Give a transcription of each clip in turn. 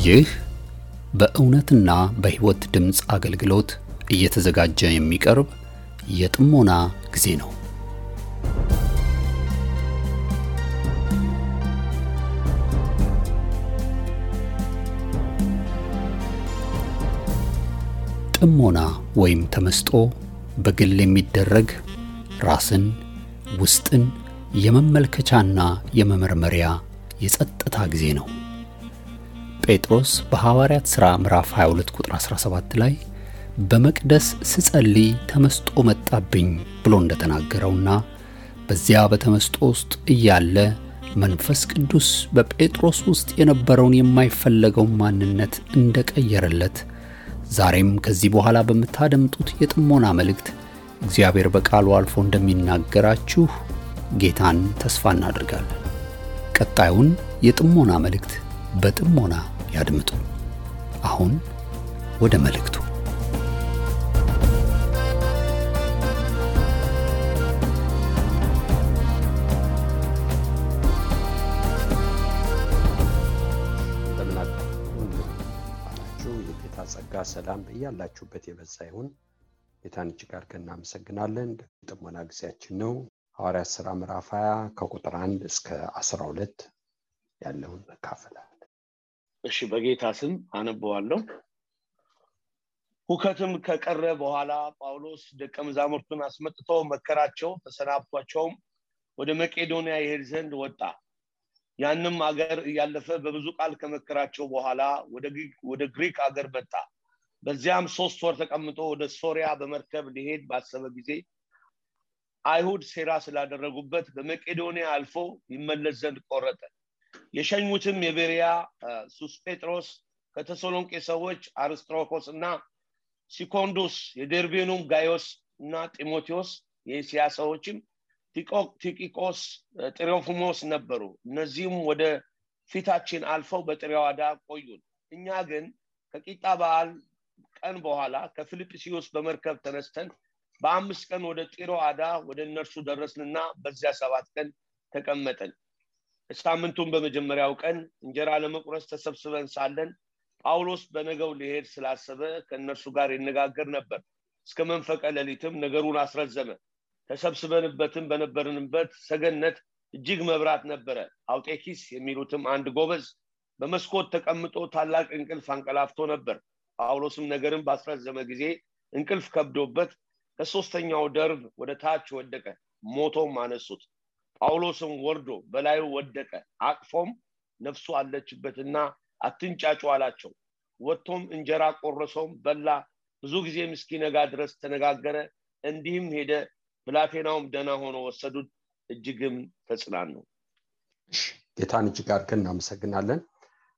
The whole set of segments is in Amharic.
ይህ በእውነትና በሕይወት ድምጽ አገልግሎት እየተዘጋጀ የሚቀርብ የጥሞና ጊዜ ነው። ጥሞና ወይም ተመስጦ በግል የሚደረግ ራስን ውስጥን የመመልከቻና የመመርመሪያ የጸጥታ ጊዜ ነው። ጴጥሮስ በሐዋርያት ሥራ ምዕራፍ 22 ቁጥር 17 ላይ በመቅደስ ስጸልይ ተመስጦ መጣብኝ ብሎ እንደተናገረውና በዚያ በተመስጦ ውስጥ እያለ መንፈስ ቅዱስ በጴጥሮስ ውስጥ የነበረውን የማይፈለገው ማንነት እንደቀየረለት ዛሬም ከዚህ በኋላ በመታደምጡት የጥሞና መልእክት እግዚአብሔር በቃሉ አልፎ እንደሚናገራችሁ ጌታን ተስፋ እናደርጋለን። ቀጣዩን የጥሞና መልእክት በጥሞና ያድምጡ። አሁን ወደ መልእክቱ። የጌታ ጸጋ ሰላም በእያላችሁበት የበዛ ይሁን። ጌታን እጅግ አድርገን እናመሰግናለን። ጥሞና ጊዜያችን ነው። ሐዋርያት ሥራ ምዕራፍ 20 ከቁጥር 1 እስከ 12 ያለውን እንካፈላለን። እሺ፣ በጌታ ስም አነበዋለሁ። ሁከትም ከቀረ በኋላ ጳውሎስ ደቀ መዛሙርቱን አስመጥቶ መከራቸው፣ ተሰናብቷቸውም ወደ መቄዶንያ ይሄድ ዘንድ ወጣ። ያንም አገር እያለፈ በብዙ ቃል ከመከራቸው በኋላ ወደ ግሪክ አገር መጣ። በዚያም 3 ወር ተቀምጦ ወደ ሶሪያ በመርከብ ሊሄድ ባሰበ ጊዜ አይሁድ ሴራ ስላደረጉበት በመቄዶንያ አልፎ ይመለስ ዘንድ ቆረጠ። የሸኙትም የቤሪያ ሱስጴጥሮስ፣ ከተሰሎንቄ ሰዎች አርስጥሮኮስና ሲኮንዱስ፣ የደርቤኑም ጋዮስ እና ጢሞቴዎስ፣ የእስያ ሰዎችም ቲቂቆስ፣ ጥሮፊሞስ ነበሩ። እነዚህም ወደ ፊታችን አልፈው በጥሪያዳ ቆዩን። እኛ ግን ከቂጣ በዓል ቀን በኋላ ከፊልጵስዩስ በመርከብ ተነስተን በ5 ቀን ወደ ጢሮአዳ ወደ እነርሱ ደረስንና በዚያ 7 ቀን ተቀመጥን። ሳምንቱን በመጀመሪያው ቀን እንጀራ ለመቁረስ ተሰብስበን ሳለን ጳውሎስ በነገው ሊሄድ ስላሰበ ከእነርሱ ጋር ይነጋገር ነበር። እስከ መንፈቀ ሌሊትም ነገሩን አስረዘመ። ተሰብስበንበትም በነበርንበት ሰገነት እጅግ መብራት ነበረ። አውጤኪስ የሚሉትም አንድ ጎበዝ በመስኮት ተቀምጦ ታላቅ እንቅልፍ አንቀላፍቶ ነበር። ጳውሎስም ነገርን ባስረዘመ ጊዜ እንቅልፍ ከብዶበት ከ3ኛው ደርብ ወደ ታች ወደቀ። ሞቶም አነሱት። ጳውሎስም ወርዶ በላዩ ወደቀ። አቅፎም ነፍሱ አለችበትና አትንጫጩ አላቸው። ወጥቶም እንጀራ ቆረሰውም በላ። ብዙ ጊዜ እስኪነጋ ድረስ ተነጋገረ። እንዲህም ሄደ። ብላቴናውም ደህና ሆኖ ወሰዱት። እጅግም ተጽናኑ። ጌታን እጅግ አድርገን እናመሰግናለን።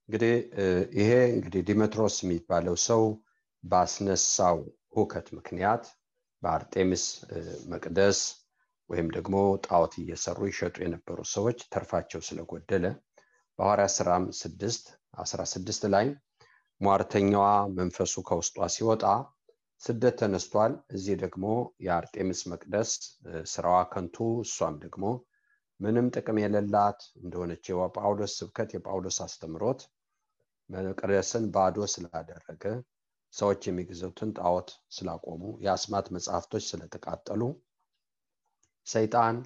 እንግዲህ ዲሜጥሮስ የሚባለው ሰው ባስነሳው ሁከት ምክንያት በአርጤምስ መቅደስ ወይም ደግሞ ጣዖት እየሰሩ ይሸጡ የነበሩ ሰዎች ተርፋቸው ስለጎደለ በሐዋርያት ሥራ 6:16 ላይ ሟርተኛዋ መንፈሱ ከውስጧ ሲወጣ ስደት ተነስቷል። እዚህ ደግሞ የአርጤምስ መቅደስ ስራዋ ከንቱ፣ እሷም ደግሞ ምንም ጥቅም የሌላት እንደሆነች የጳውሎስ ስብከት የጳውሎስ አስተምሮት መቅደስን ባዶ ስላደረገ፣ ሰዎች የሚገዙትን ጣዖት ስላቆሙ፣ የአስማት መጻሕፍቶች ስለተቃጠሉ ሰይጣን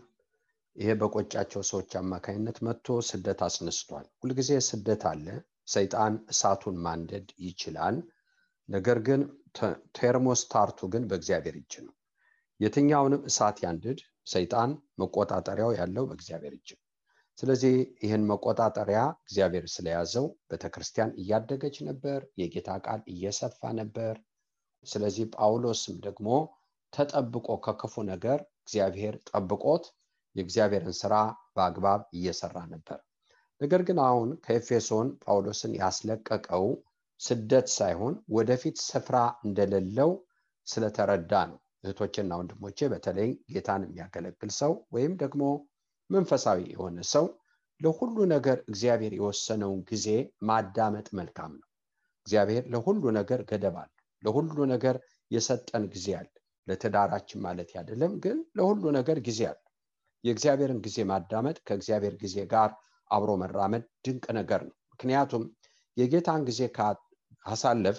ይሄ በቆጫቸው ሰዎች አማካይነት መጥቶ ስደት አስነስቷል። ሁልጊዜ ስደት አለ። ሰይጣን እሳቱን ማንደድ ይችላል። ነገር ግን ቴርሞስታቱ ግን በእግዚአብሔር እጅ ነው። የትኛውንም እሳት ያንድድ ሰይጣን መቆጣጠሪያው ያለው በእግዚአብሔር እጅ ነው። ስለዚህ ይህን መቆጣጠሪያ እግዚአብሔር ስለያዘው ቤተክርስቲያን እያደገች ነበር፣ የጌታ ቃል እየሰፋ ነበር። ስለዚህ ጳውሎስም ደግሞ ተጠብቆ ከክፉ ነገር እግዚአብሔር ጠብቆት የእግዚአብሔርን ስራ በአግባብ እየሰራ ነበር። ነገር ግን አሁን ከኤፌሶን ጳውሎስን ያስለቀቀው ስደት ሳይሆን ወደፊት ስፍራ እንደሌለው ስለተረዳ ነው። እህቶችና ወንድሞቼ፣ በተለይ ጌታን የሚያገለግል ሰው ወይም ደግሞ መንፈሳዊ የሆነ ሰው ለሁሉ ነገር እግዚአብሔር የወሰነውን ጊዜ ማዳመጥ መልካም ነው። እግዚአብሔር ለሁሉ ነገር ገደብ አለው። ለሁሉ ነገር የሰጠን ጊዜ አለ። ለትዳራችን ማለት አይደለም፣ ግን ለሁሉ ነገር ጊዜ አለ። የእግዚአብሔርን ጊዜ ማዳመጥ ከእግዚአብሔር ጊዜ ጋር አብሮ መራመድ ድንቅ ነገር ነው። ምክንያቱም የጌታን ጊዜ ካሳለፍ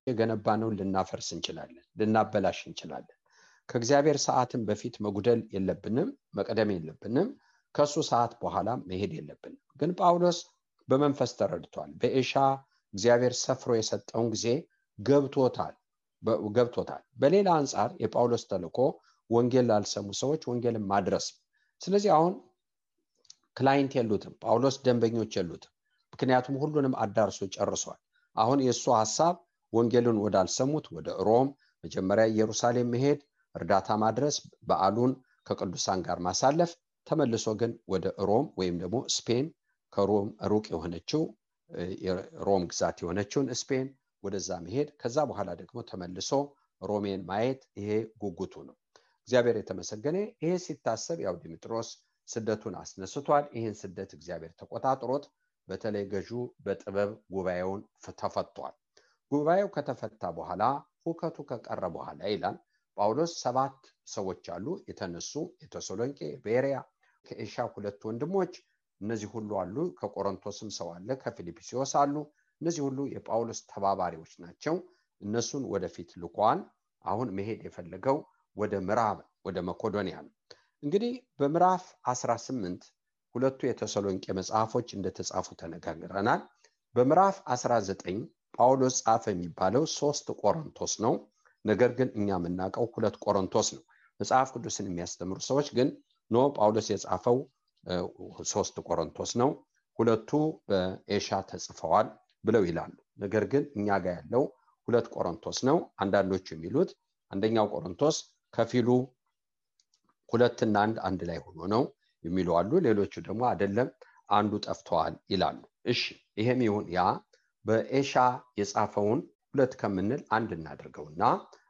የገነባነውን ልናፈርስ እንችላለን፣ ልናበላሽ እንችላለን። ከእግዚአብሔር ሰዓትን በፊት መጉደል የለብንም፣ መቅደም የለብንም። ከሱ ሰዓት በኋላ መሄድ የለብንም። ግን ጳውሎስ በመንፈስ ተረድቷል። በኤሻ እግዚአብሔር ሰፍሮ የሰጠውን ጊዜ ገብቶታል። በሌላ አንጻር የጳውሎስ ተልእኮ ወንጌል ላልሰሙ ሰዎች ወንጌልን ማድረስ። ስለዚህ አሁን ክላይንት የሉትም፣ ጳውሎስ ደንበኞች የሉትም። ምክንያቱም ሁሉንም አዳርሶ ጨርሷል። አሁን የእሱ ሐሳብ ወንጌልን ወዳልሰሙት ወደ ሮም መጀመሪያ ኢየሩሳሌም መሄድ፣ እርዳታ ማድረስ፣ በዓሉን ከቅዱሳን ጋር ማሳለፍ፣ ተመልሶ ግን ወደ ሮም ወይም ደግሞ ስፔን ከሮም ሩቅ የሆነችው ሮም ግዛት የሆነችውን ስፔን ወደዛ መሄድ፣ ከዛ በኋላ ደግሞ ተመልሶ ሮሜን ማየት። ይሄ ጉጉቱ ነው። እግዚአብሔር የተመሰገነ። ይሄ ሲታሰብ ያው ዲሜጥሮስ ስደቱን አስነስቷል። ይህን ስደት እግዚአብሔር ተቆጣጥሮት በተለይ ገዢው በጥበብ ጉባኤውን ተፈቷል። ጉባኤው ከተፈታ በኋላ ሁከቱ ከቀረ በኋላ ይላል ጳውሎስ 7 ሰዎች አሉ የተነሱ፣ የተሰሎንቄ፣ ቤሪያ፣ ከኤሻ 2 ወንድሞች፣ እነዚህ ሁሉ አሉ። ከቆሮንቶስም ሰው አለ፣ ከፊልጵስዩስ አሉ። እነዚህ ሁሉ የጳውሎስ ተባባሪዎች ናቸው። እነሱን ወደፊት ልኳን አሁን መሄድ የፈለገው ወደ ምዕራብ ወደ መቄዶንያ ነው። እንግዲህ በምዕራፍ 18 ሁለቱ የተሰሎንቄ መጽሐፎች እንደተጻፉ ተነጋግረናል። በምዕራፍ 19 ጳውሎስ ጻፈ የሚባለው 3 ቆሮንቶስ ነው። ነገር ግን እኛ የምናውቀው 2 ቆሮንቶስ ነው። መጽሐፍ ቅዱስን የሚያስተምሩ ሰዎች ግን ኖ ጳውሎስ የጻፈው 3 ቆሮንቶስ ነው፣ 2ቱ በኤሻ ተጽፈዋል ብለው ይላሉ። ነገር ግን እኛ ጋር ያለው 2 ቆሮንቶስ ነው። አንዳንዶቹ የሚሉት አንደኛው ቆሮንቶስ ከፊሉ 2 እና 1 ላይ ሆኖ ነው የሚሉ አሉ። ሌሎቹ ደግሞ አይደለም አንዱ ጠፍቷል ይላሉ። እሺ ይሄም ይሁን ያ በኤሻ የጻፈውን 2 ከምንል 1 እናድርገውና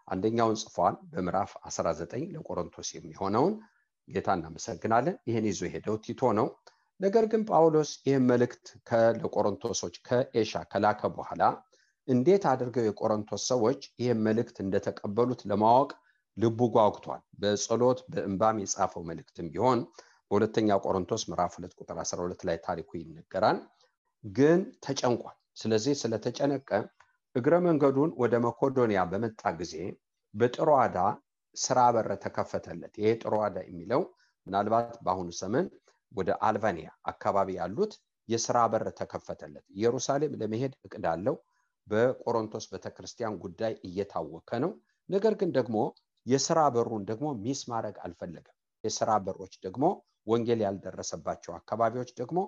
አንደኛውን ጽፏል በምዕራፍ 19 ለቆሮንቶስ የሚሆነውን። ጌታ እናመሰግናለን። ይሄን ይዞ ሄደው ቲቶ ነው። ነገር ግን ጳውሎስ ይህን መልእክት ለቆሮንቶሶች ከኤሻ ከላከ በኋላ እንዴት አድርገው የቆሮንቶስ ሰዎች ይህን መልእክት እንደተቀበሉት ለማወቅ ልቡ ጓጉቷል። በጸሎት በእንባም የጻፈው መልእክትም ቢሆን በሁለተኛ ቆሮንቶስ ምዕራፍ 2 ቁጥር 12 ላይ ታሪኩ ይነገራል። ግን ተጨንቋል። ስለዚህ ስለተጨነቀ እግረ መንገዱን ወደ መቄዶንያ በመጣ ጊዜ በጥሮአዳ ስራ በር ተከፈተለት። ይሄ ጥሮአዳ የሚለው ምናልባት በአሁኑ ዘመን ወደ አልባኒያ አካባቢ ያሉት የስራ በር ተከፈተለት። ኢየሩሳሌም ለመሄድ እቅድ አለው። በቆሮንቶስ ቤተክርስቲያን ጉዳይ እየታወከ ነው። ነገር ግን ደግሞ የስራ በሩን ደግሞ ሚስ ማድረግ አልፈለገም። የስራ በሮች ደግሞ ወንጌል ያልደረሰባቸው አካባቢዎች ደግሞ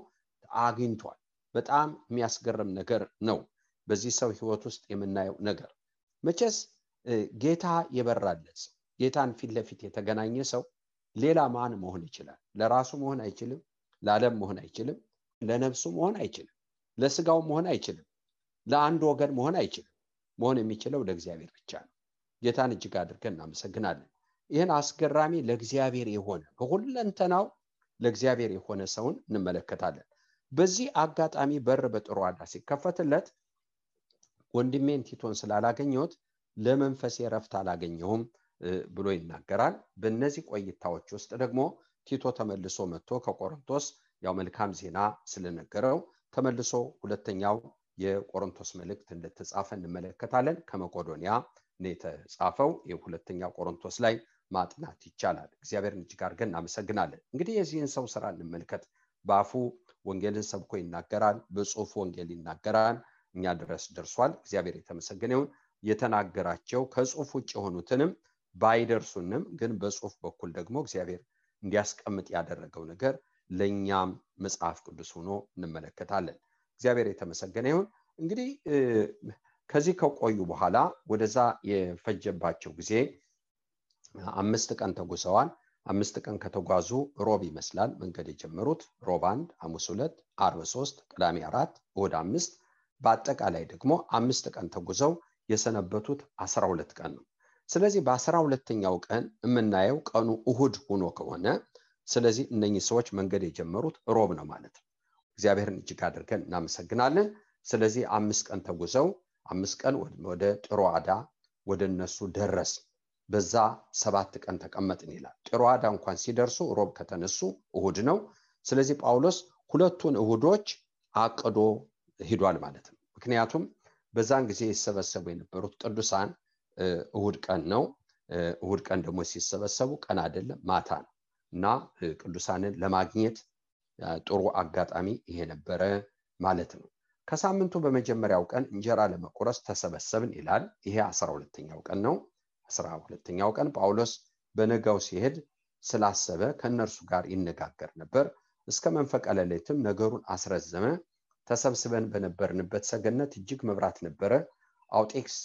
አግኝቷል። በጣም የሚያስገርም ነገር ነው በዚህ ሰው ህይወት ውስጥ የምናየው ነገር። መቼስ ጌታ የበራለት ሰው፣ ጌታን ፊት ለፊት የተገናኘ ሰው ሌላ ማን መሆን ይችላል? ለራሱ መሆን አይችልም፣ ለዓለም መሆን አይችልም፣ ለነፍሱ መሆን አይችልም፣ ለስጋው መሆን አይችልም፣ ለአንድ ወገን መሆን አይችልም። መሆን የሚችለው ለእግዚአብሔር ብቻ ነው። ጌታን እጅግ አድርገን እናመሰግናለን። ይህን አስገራሚ ለእግዚአብሔር የሆነ በሁለንተናው ለእግዚአብሔር የሆነ ሰውን እንመለከታለን። በዚህ አጋጣሚ በር በጥሮአዳ ሲከፈትለት ወንድሜን ቲቶን ስላላገኘሁት ለመንፈሴ ረፍት አላገኘሁም ብሎ ይናገራል። በእነዚህ ቆይታዎች ውስጥ ደግሞ ቲቶ ተመልሶ መጥቶ ከቆሮንቶስ ያው መልካም ዜና ስለነገረው ተመልሶ ሁለተኛው የቆሮንቶስ መልእክት እንደተጻፈ እንመለከታለን። ከመቄዶንያ ነው የተጻፈው። የሁለተኛው ቆሮንቶስ ላይ ማጥናት ይቻላል። እግዚአብሔርን እጅግ አድርገን እናመሰግናለን። እንግዲህ የዚህን ሰው ስራ እንመልከት። በአፉ ወንጌልን ሰብኮ ይናገራል፣ በጽሁፍ ወንጌል ይናገራል፣ እኛ ድረስ ደርሷል። እግዚአብሔር የተመሰገነ ይሁን። የተናገራቸው ከጽሁፍ ውጭ የሆኑትንም ባይደርሱንም ግን በጽሁፍ በኩል ደግሞ እግዚአብሔር እንዲያስቀምጥ ያደረገው ነገር ለኛም መጽሐፍ ቅዱስ ሆኖ እንመለከታለን። እግዚአብሔር የተመሰገነ ይሁን። እንግዲህ ከዚህ ከቆዩ በኋላ ወደዛ የፈጀባቸው ጊዜ 5 ቀን ተጉዘዋል። 5 ቀን ከተጓዙ ሮብ ይመስላል መንገድ የጀመሩት። ሮብ 1፣ ሐሙስ 2፣ ዓርብ 3፣ ቅዳሜ 4፣ እሑድ 5፣ በአጠቃላይ ደግሞ 5 ቀን ተጉዘው የሰነበቱት 12 ቀን ነው። ስለዚህ በ12ኛው ቀን የምናየው ቀኑ እሑድ ሆኖ ከሆነ ስለዚህ እነኚህ ሰዎች መንገድ የጀመሩት ሮብ ነው ማለት ነው። እግዚአብሔርን እጅግ አድርገን እናመሰግናለን። ስለዚህ 5 ቀን ተጉዘው 5 ቀን ወደ ጥሮአዳ ወደ እነሱ ደረስ። በዛ 7 ቀን ተቀመጥን ይላል። ጥሮአዳ እንኳን ሲደርሱ ሮብ ከተነሱ እሑድ ነው። ስለዚህ ጳውሎስ 2ቱን እሑዶች አቅዶ ሄዷል ማለት ነው። ምክንያቱም በዛን ጊዜ ይሰበሰቡ የነበሩት ቅዱሳን እሁድ ቀን ነው። እሁድ ቀን ደግሞ ሲሰበሰቡ ቀን አይደለም ማታ ነው እና ቅዱሳንን ለማግኘት ጥሩ አጋጣሚ ይሄ ነበረ ማለት ነው። ከሳምንቱ በመጀመሪያው ቀን እንጀራ ለመቁረስ ተሰበሰብን ይላል። ይሄ 12ኛው ቀን ነው። 12ኛው ቀን ጳውሎስ በነጋው ሲሄድ ስላሰበ ከነርሱ ጋር ይነጋገር ነበር። እስከ መንፈቀ ሌሊትም ነገሩን አስረዘመ። ተሰብስበን በነበርንበት ሰገነት እጅግ መብራት ነበረ። አውጤክስ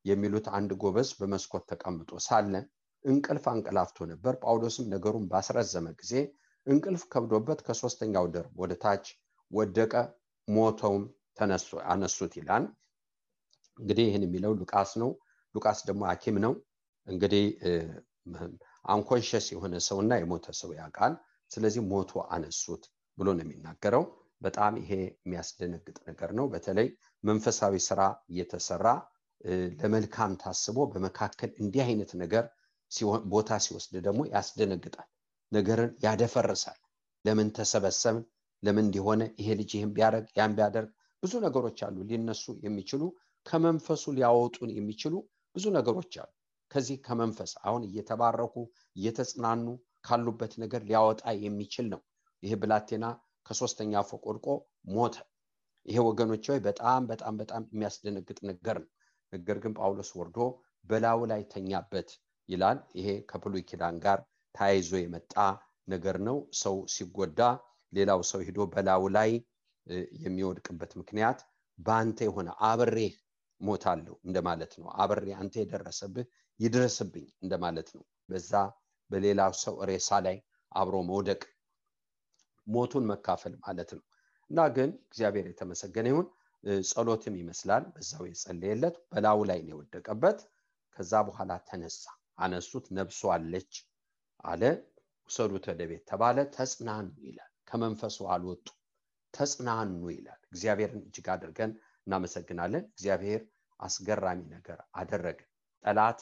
የሚሉት አንድ ጎበዝ በመስኮት ተቀምጦ ሳለ እንቅልፍ አንቀላፍቶ ነበር። ጳውሎስም ነገሩን ባስረዘመ ጊዜ እንቅልፍ ከብዶበት ከሶስተኛው ደርብ ወደ ታች ወደቀ፣ ሞተውም አነሱት ይላል። እንግዲህ ይህን የሚለው ሉቃስ ነው። ሉቃስ ደግሞ ሐኪም ነው። እንግዲህ አንኮንሸስ የሆነ ሰውና የሞተ ሰው ያውቃል። ስለዚህ ሞቶ አነሱት ብሎ ነው የሚናገረው። በጣም ይሄ የሚያስደነግጥ ነገር ነው። በተለይ መንፈሳዊ ስራ እየተሰራ ለመልካም ታስቦ በመካከል እንዲህ አይነት ነገር ቦታ ሲወስድ ደግሞ ያስደነግጣል፣ ነገርን ያደፈርሳል። ለምን ተሰበሰብን፣ ለምን እንዲሆነ፣ ይሄ ልጅ ይሄን ቢያደርግ ያን ቢያደርግ፣ ብዙ ነገሮች አሉ ሊነሱ የሚችሉ ከመንፈሱ ሊያወጡን የሚችሉ ብዙ ነገሮች አሉ። ከዚህ ከመንፈስ አሁን እየተባረኩ እየተጽናኑ ካሉበት ነገር ሊያወጣ የሚችል ነው። ይሄ ብላቴና ከሶስተኛ ፎቅ ወድቆ ሞተ። ይሄ ወገኖች ሆይ በጣም በጣም በጣም የሚያስደነግጥ ነገር ነው። ነገር ግን ጳውሎስ ወርዶ በላዩ ላይ ተኛበት ይላል። ይሄ ከብሉይ ኪዳን ጋር ተያይዞ የመጣ ነገር ነው። ሰው ሲጎዳ ሌላው ሰው ሄዶ በላዩ ላይ የሚወድቅበት ምክንያት በአንተ የሆነ አብሬህ ሞታለሁ እንደማለት ነው። አብሬ አንተ የደረሰብህ ይድረስብኝ እንደማለት ነው። በዛ በሌላው ሰው ሬሳ ላይ አብሮ መውደቅ ሞቱን መካፈል ማለት ነው። እና ግን እግዚአብሔር የተመሰገነ ይሁን፣ ጸሎትም ይመስላል በዛው የጸለየለት በላዩ ላይ ነው የወደቀበት። ከዛ በኋላ ተነሳ፣ አነሱት፣ ነፍሱ አለች አለ። ውሰዱት ወደ ቤት ተባለ። ተጽናኑ ይላል። ከመንፈሱ አልወጡ ተጽናኑ ይላል። እግዚአብሔርን እጅግ አድርገን እናመሰግናለን። እግዚአብሔር አስገራሚ ነገር አደረገ። ጠላት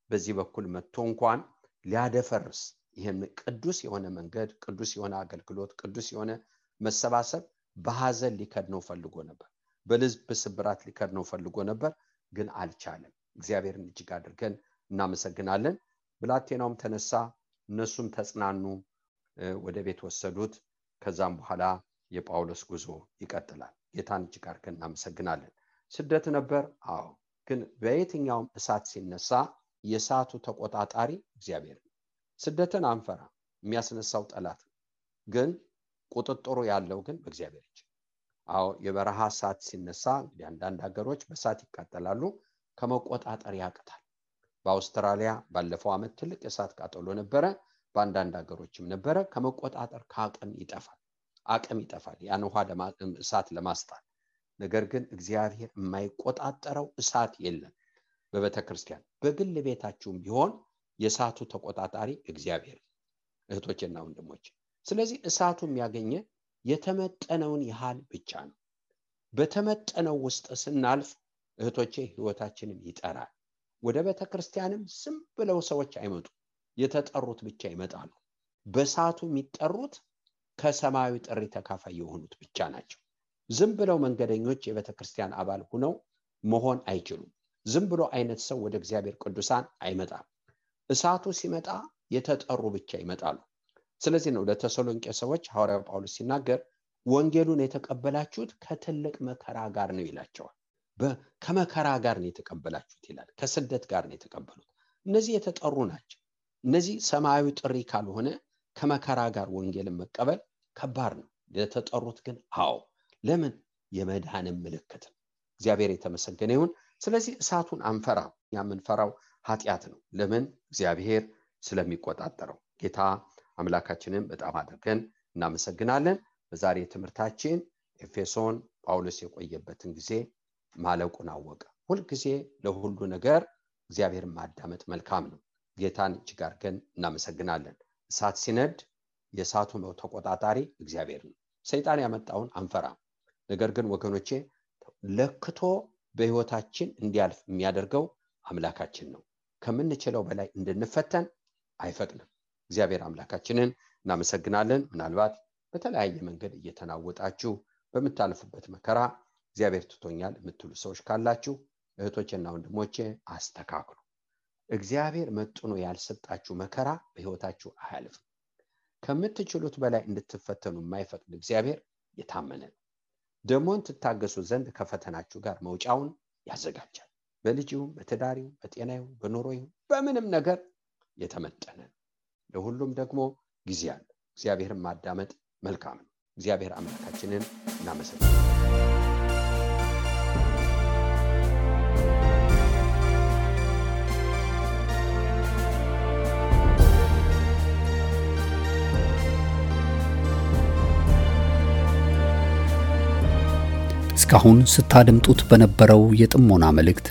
በዚህ በኩል መጥቶ እንኳን ሊያደፈርስ ይሄን ቅዱስ የሆነ መንገድ፣ ቅዱስ የሆነ አገልግሎት፣ ቅዱስ የሆነ መሰባሰብ በሐዘን ሊከድነው ፈልጎ ነበር፣ በልብ ስብራት ሊከድነው ፈልጎ ነበር፣ ግን አልቻለም። እግዚአብሔርን እጅግ አድርገን እናመሰግናለን። ብላቴናውም ተነሳ፣ እነሱም ተጽናኑ፣ ወደ ቤት ወሰዱት። ከዛም በኋላ የጳውሎስ ጉዞ ይቀጥላል። ጌታን እጅግ አድርገን እናመሰግናለን። ስደት ነበር። አዎ፣ ግን በየትኛውም እሳት ሲነሳ የእሳቱ ተቆጣጣሪ እግዚአብሔር ነው። ስደትን አንፈራ፣ የሚያስነሳው ጠላት ነው። ግን ቁጥጥሩ ያለው ግን በእግዚአብሔር እጅ። አዎ፣ የበረሃ እሳት ሲነሳ እንግዲህ አንዳንድ ሀገሮች በእሳት ይቃጠላሉ፣ ከመቆጣጠር ያቅታል። በአውስትራሊያ ባለፈው ዓመት ትልቅ እሳት ቃጠሎ ነበረ። በአንዳንድ ሀገሮችም ነበረ። ከመቆጣጠር አቅም ይጠፋል ያን ውሃ እሳት ለማስጣል። ነገር ግን እግዚአብሔር የማይቆጣጠረው እሳት የለም። በቤተክርስቲያን በግል ቤታችሁም ቢሆን የእሳቱ ተቆጣጣሪ እግዚአብሔር። እህቶችና ወንድሞች፣ ስለዚህ እሳቱ የሚያገኘ የተመጠነውን ያህል ብቻ ነው። በተመጠነው ውስጥ ስናልፍ እህቶቼ ህይወታችንን ይጠራል። ወደ ቤተክርስቲያንም ዝም ብለው ሰዎች አይመጡ፣ የተጠሩት ብቻ ይመጣሉ። በእሳቱ የሚጠሩት ከሰማያዊ ጥሪ ተካፋይ የሆኑት ብቻ ናቸው። ዝም ብለው መንገደኞች የቤተክርስቲያን አባል ሆነው መሆን አይችሉም። ዝም ብሎ አይነት ሰው ወደ እግዚአብሔር ቅዱሳን አይመጣም። እሳቱ ሲመጣ የተጠሩ ብቻ ይመጣሉ። ስለዚህ ነው ለተሰሎንቄ ሰዎች ሐዋርያው ጳውሎስ ሲናገር ወንጌሉን የተቀበላችሁት ከትልቅ መከራ ጋር ነው ይላቸዋል። ከመከራ ጋር ነው የተቀበላችሁት ይላል። ከስደት ጋር ነው የተቀበሉት። እነዚህ የተጠሩ ናቸው። እነዚህ ሰማያዊ ጥሪ ካልሆነ ከመከራ ጋር ወንጌልን መቀበል ከባድ ነው። የተጠሩት ግን አዎ፣ ለምን? የመዳንም ምልክት። እግዚአብሔር የተመሰገነ ይሁን። ስለዚህ እሳቱን አንፈራ። የምንፈራው ኃጢአት ነው። ለምን? እግዚአብሔር ስለሚቆጣጠረው። ጌታ አምላካችንን በጣም አድርገን እናመሰግናለን። በዛሬ ትምህርታችን ኤፌሶን ጳውሎስ የቆየበትን ጊዜ ማለቁን አወቀ። ሁልጊዜ ለሁሉ ነገር እግዚአብሔርን ማዳመጥ መልካም ነው። ጌታን እጅግ አድርገን እናመሰግናለን። እሳት ሲነድ የእሳቱ ተቆጣጣሪ እግዚአብሔር ነው። ሰይጣን ያመጣውን አንፈራም። ነገር ግን ወገኖቼ ለክቶ በህይወታችን እንዲያልፍ የሚያደርገው አምላካችን ነው። ከምንችለው በላይ እንድንፈተን አይፈቅድም። እግዚአብሔር አምላካችንን እናመሰግናለን። ምናልባት በተለያየ መንገድ እየተናወጣችሁ በምታልፉበት መከራ እግዚአብሔር ትቶኛል የምትሉ ሰዎች ካላችሁ እህቶቼና ወንድሞቼ አስተካክሉ። እግዚአብሔር መጥኖ ያልሰጣችሁ መከራ በህይወታችሁ አያልፍም። ከምትችሉት በላይ እንድትፈተኑ የማይፈቅድ እግዚአብሔር የታመነ ነው። ደሞን ትታገሱ ዘንድ ከፈተናችሁ ጋር መውጫውን ያዘጋጃል። በልጅው፣ በትዳሪው፣ በጤናው፣ በኑሮው፣ በምንም ነገር የተመጠነ ነው። ለሁሉም ደግሞ ጊዜ አለ። እግዚአብሔርን ማዳመጥ መልካም ነው። እግዚአብሔር አምላካችንን እናመሰግናለን። እስካሁን ስታደምጡት በነበረው የጥሞና መልእክት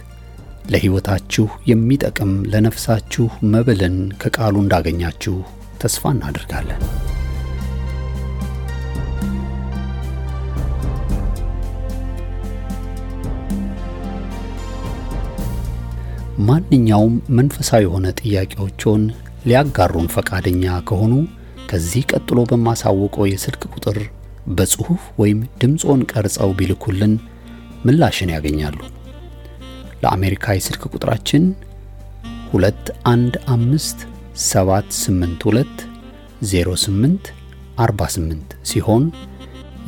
ለሕይወታችሁ የሚጠቅም ለነፍሳችሁ መብልን ከቃሉ እንዳገኛችሁ ተስፋ እናደርጋለን። ማንኛውም መንፈሳዊ የሆነ ጥያቄዎችን ሊያጋሩን ፈቃደኛ ከሆኑ ከዚህ ቀጥሎ በማሳወቀው የስልክ ቁጥር በጽሁፍ ወይም ድምጾን ቀርጸው ቢልኩልን ምላሽን ያገኛሉ። ለአሜሪካ የስልክ ቁጥራችን 2157820848 ሲሆን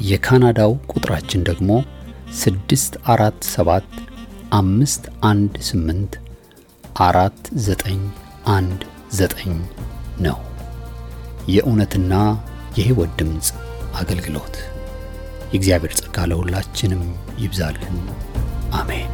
የካናዳው ቁጥራችን ደግሞ 64751849119 ነው። የእውነትና የሕይወት ድምጽ አገልግሎት። የእግዚአብሔር ጸጋ ለሁላችንም ይብዛልን። አሜን።